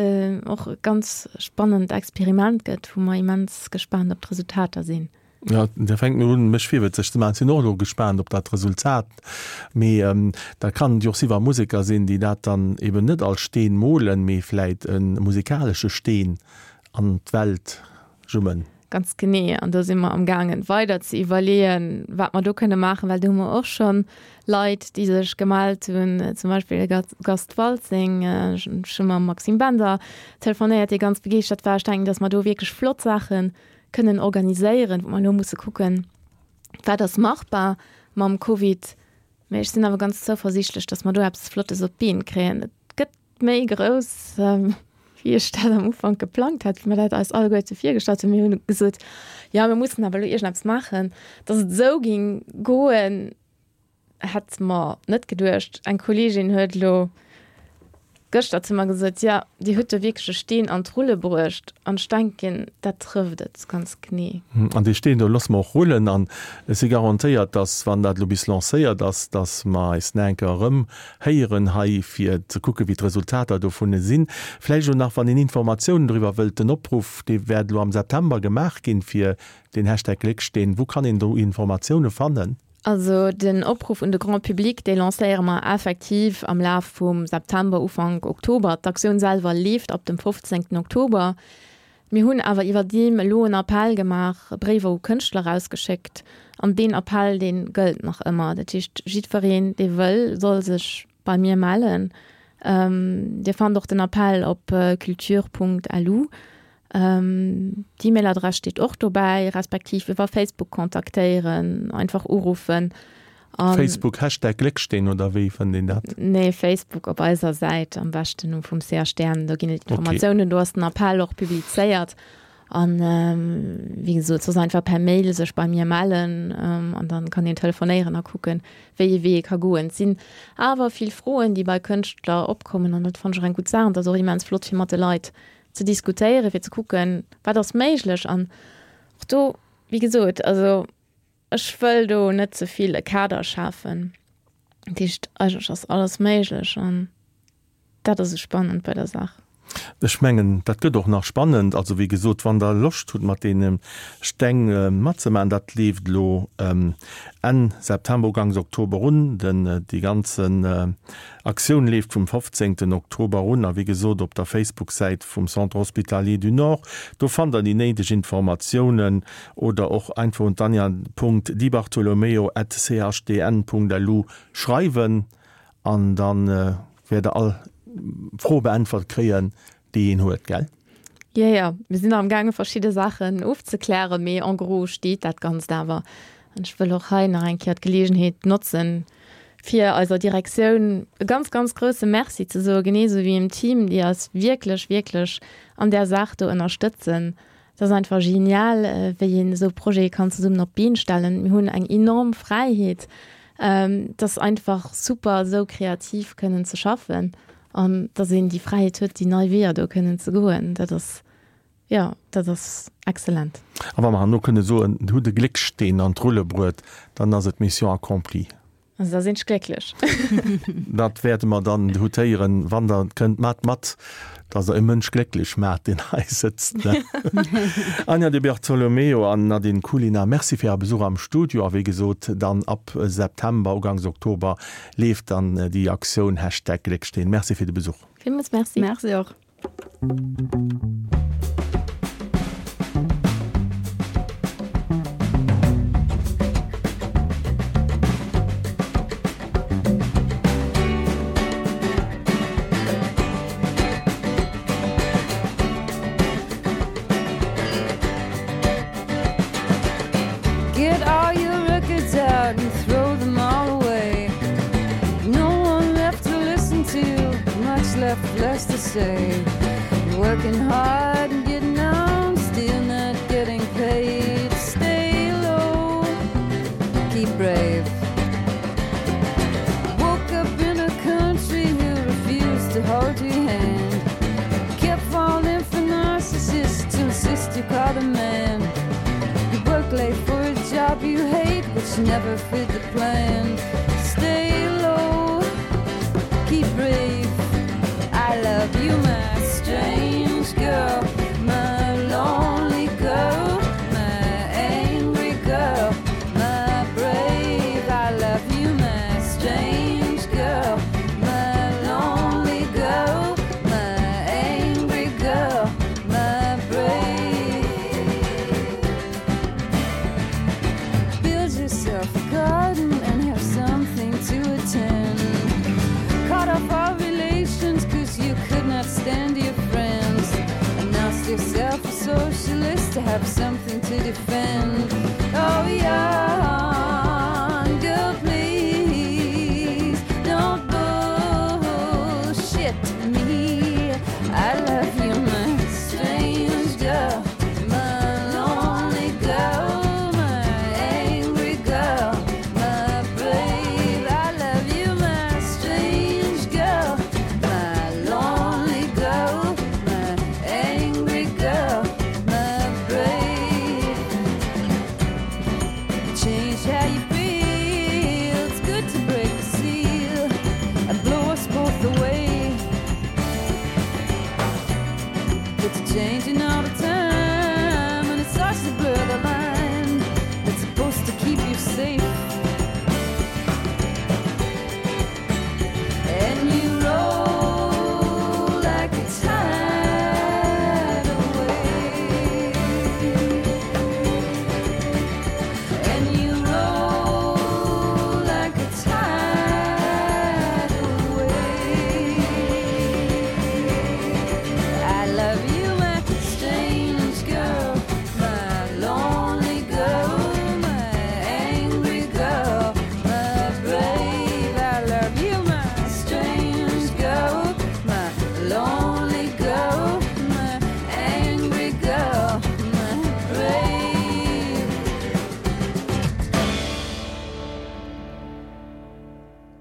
och e ganz spannend Experiment gëtt, wou mer immens gespaant op d'Resultater sinn. Jo, da fänkt mir un, mech virwëtzeg ze maachen. Ech sinn och elo gespaant op dat Resultat. Mee dat kann jo och si wa Museker sinn, déi dat dann eben net als Steen molen, mee vläit e musikalesche Steen an d'Welt jummen. Ganz genee. An do si mer amgaangen, weider ze iwwerleeën, wat mer do kënne maachen, well do hu mer och scho Leit, déi sech gemellt hunn, zum Beispill de Gast Waltzing. Ech hu mam Maxime Bender telefonéiert, dee ganz begeeschtert war. Ech denken, datt mer do wierklech flott Saache kënnen organiséieren, wou mer elo musse kucken, wat ass machbar mam Covid. Mee ech sinn awer ganz zouversiichtlech, datt mer do eppes Flottes op d'Been kréien. Et gëtt méi grouss, wéi ech dat am Ufank geplangt hat, wéi mer dat eis alleguerte virgestallt hunn. Mir hunn gesot, jo, mir mussen awer elo iergendeppes maachen. Datt et esou géing goen, hätt mer net geduecht. Eng Kolleegin huet elo gëschter zu mer gesot, jo, Dir hutt do wierklech e Steen an d'Rulle bruecht. An ech denken, dat trëfft et ganz genee. An dee Steen do loosse mer och rullen. An ech si garantéiert, datt, wann dat elo bis lancéiert ass, datt mer eis nach eng Kéier erëm héieren hei, fir ze kucken, wéi d'Resultater dovun sinn. Vläicht elo nach, wann een Informatiounen doriwwer wëllt, den Opruff, dee wäert elo am September gemaach ginn, fir den Hashtag Glécksteen. Wou kann een do Informatioune fannen? Also den Opruff un de Grand public, dee lancéiere mer effektiv am Laf vum September, Ufank Oktober. D'Aktioun selwer leeft ab dem 15 Oktober. Mir hunn awer iwwerdeem elo en Appell gemaach, Bréiwer u Kënschtler erausgeschéckt an deen Appell, dee gëllt nach ëmmer. Dat heescht, jiddwereen, dee wëll, soll sech bei mir mellen. Dir fannt och den Appell op culture.lu. D'E-Mail-Adress steet och dobäi, respektiv iwwer Facebook kontaktéieren, einfach uruffen. Facebook Hashtag Glécksteen oder wéi fënnt een dat? Nee, Facebook op eiser Säit am beschten um vum CHDN, do ginn et Informatiounen, do ass den Appell och publizéiert an wéi gesot soss einfach per Mail sech bei mir mellen an dann kann een telefonéieren a kucken, wéi ee Wee ee ka goen. Et sinn awer vill Froen, déi bei Kënschtler opkommen an dat fannen ech och eng gutt Saach an et ass och immens flott fir mat de Leit ze diskutéieren, fir ze kucken, wat ass méiglech an och do, wéi gesot, also Ech wëll do net ze vill e Kader schafen. Dat heescht, eigentlech ass alles méiglech an dat ass esou spannend bei der Saach. Ech mengen, dat gëtt och nach spannend. Also wéi gesot, wann Der Loscht hutt, mat deene Steng matzemaachen, dat leeft elo Enn September, Uganks Oktober un. Den, déi ganzen Aktioun leeft vum 15 Oktober un a wéi gesot op der Facebook-Säit vum Centre Hospitalier du Nord, do fannt der déi néideg Informatiounen oder och einfach un d'anja.dibartolomeo at chdn.lu schreiwen an dann wäert der all Fro beäntwert kréien. déi een huet, gell? Jo, jo, mir sinn nach amgaange verschidde Saachen ofzeklären, mee en gros steet dat Ganzt awer. An ech wëll och hei nach eng Kéier d'Geleegenheet notzen, fir eiser Direktioun e ganz, ganz grouse Merci ze soen, genee esou wéi dem Team, déi eis wierklech, wierklech an där Saach do ënnerstëtzen. Et ass einfach genial, wéi een esou Projete kann zesummen op d'Been stellen. Mir hunn eng enorm Fräiheet. Et ass einfach super, esou kreativ kënnen ze schaffen. An dass een déi Fräiheet huet, déi nei Weeër do kënnen ze goen, dat ass, jo, dat ass excellent. A wa mer herno kënne soen, Dir hutt e Gléckssteen an d'Rulle bruet, dann ass et Mission accomplie. Also da sinn ech glécklech. Dat wäerte mer dann hutéieren, wann Der kënnt. Maacht mat, dass Der e Mënsch glécklech maacht, deen hei sëtzt. Anja Di Bartolomeo an Nadine Culina, Merci fir Äre Besuch am Studio. A wéi gesot, dann ab September, uganks Oktober, Leeft dann déi Aktioun Hashtag Glécksteen. Merci fir de Besuch. Villmools Merci. Merci och. Get all your records out and throw them all away. No one left to listen to, much left less to say. Working hard and getting on, still not getting paid. Stay low, keep brave. Woke up in a country who refused to hold your hand. Kept falling for narcissists to insist you call the man. You work late for a job you hate, which never fit the plan. Stay low, keep brave. I love you, my strange girl, my lonely girl, my angry girl, my brave. I love you, my strange girl, my lonely girl, my angry girl, my brave. Build yourself a garden and have something to attend. Cut off all relations cause you could not stand your friends. Announce yourself a socialist to have something to defend. Oh yeah, girl, please don't bullshit me. I love you, my strange girl, my lonely girl, my angry girl, my brave. I love you, my strange girl, my lonely girl, my angry girl, my brave. Change how you feel. It's good to break the seal and blow us both away. It's changing all the time and it starts to blur the line. It's supposed to keep you safe.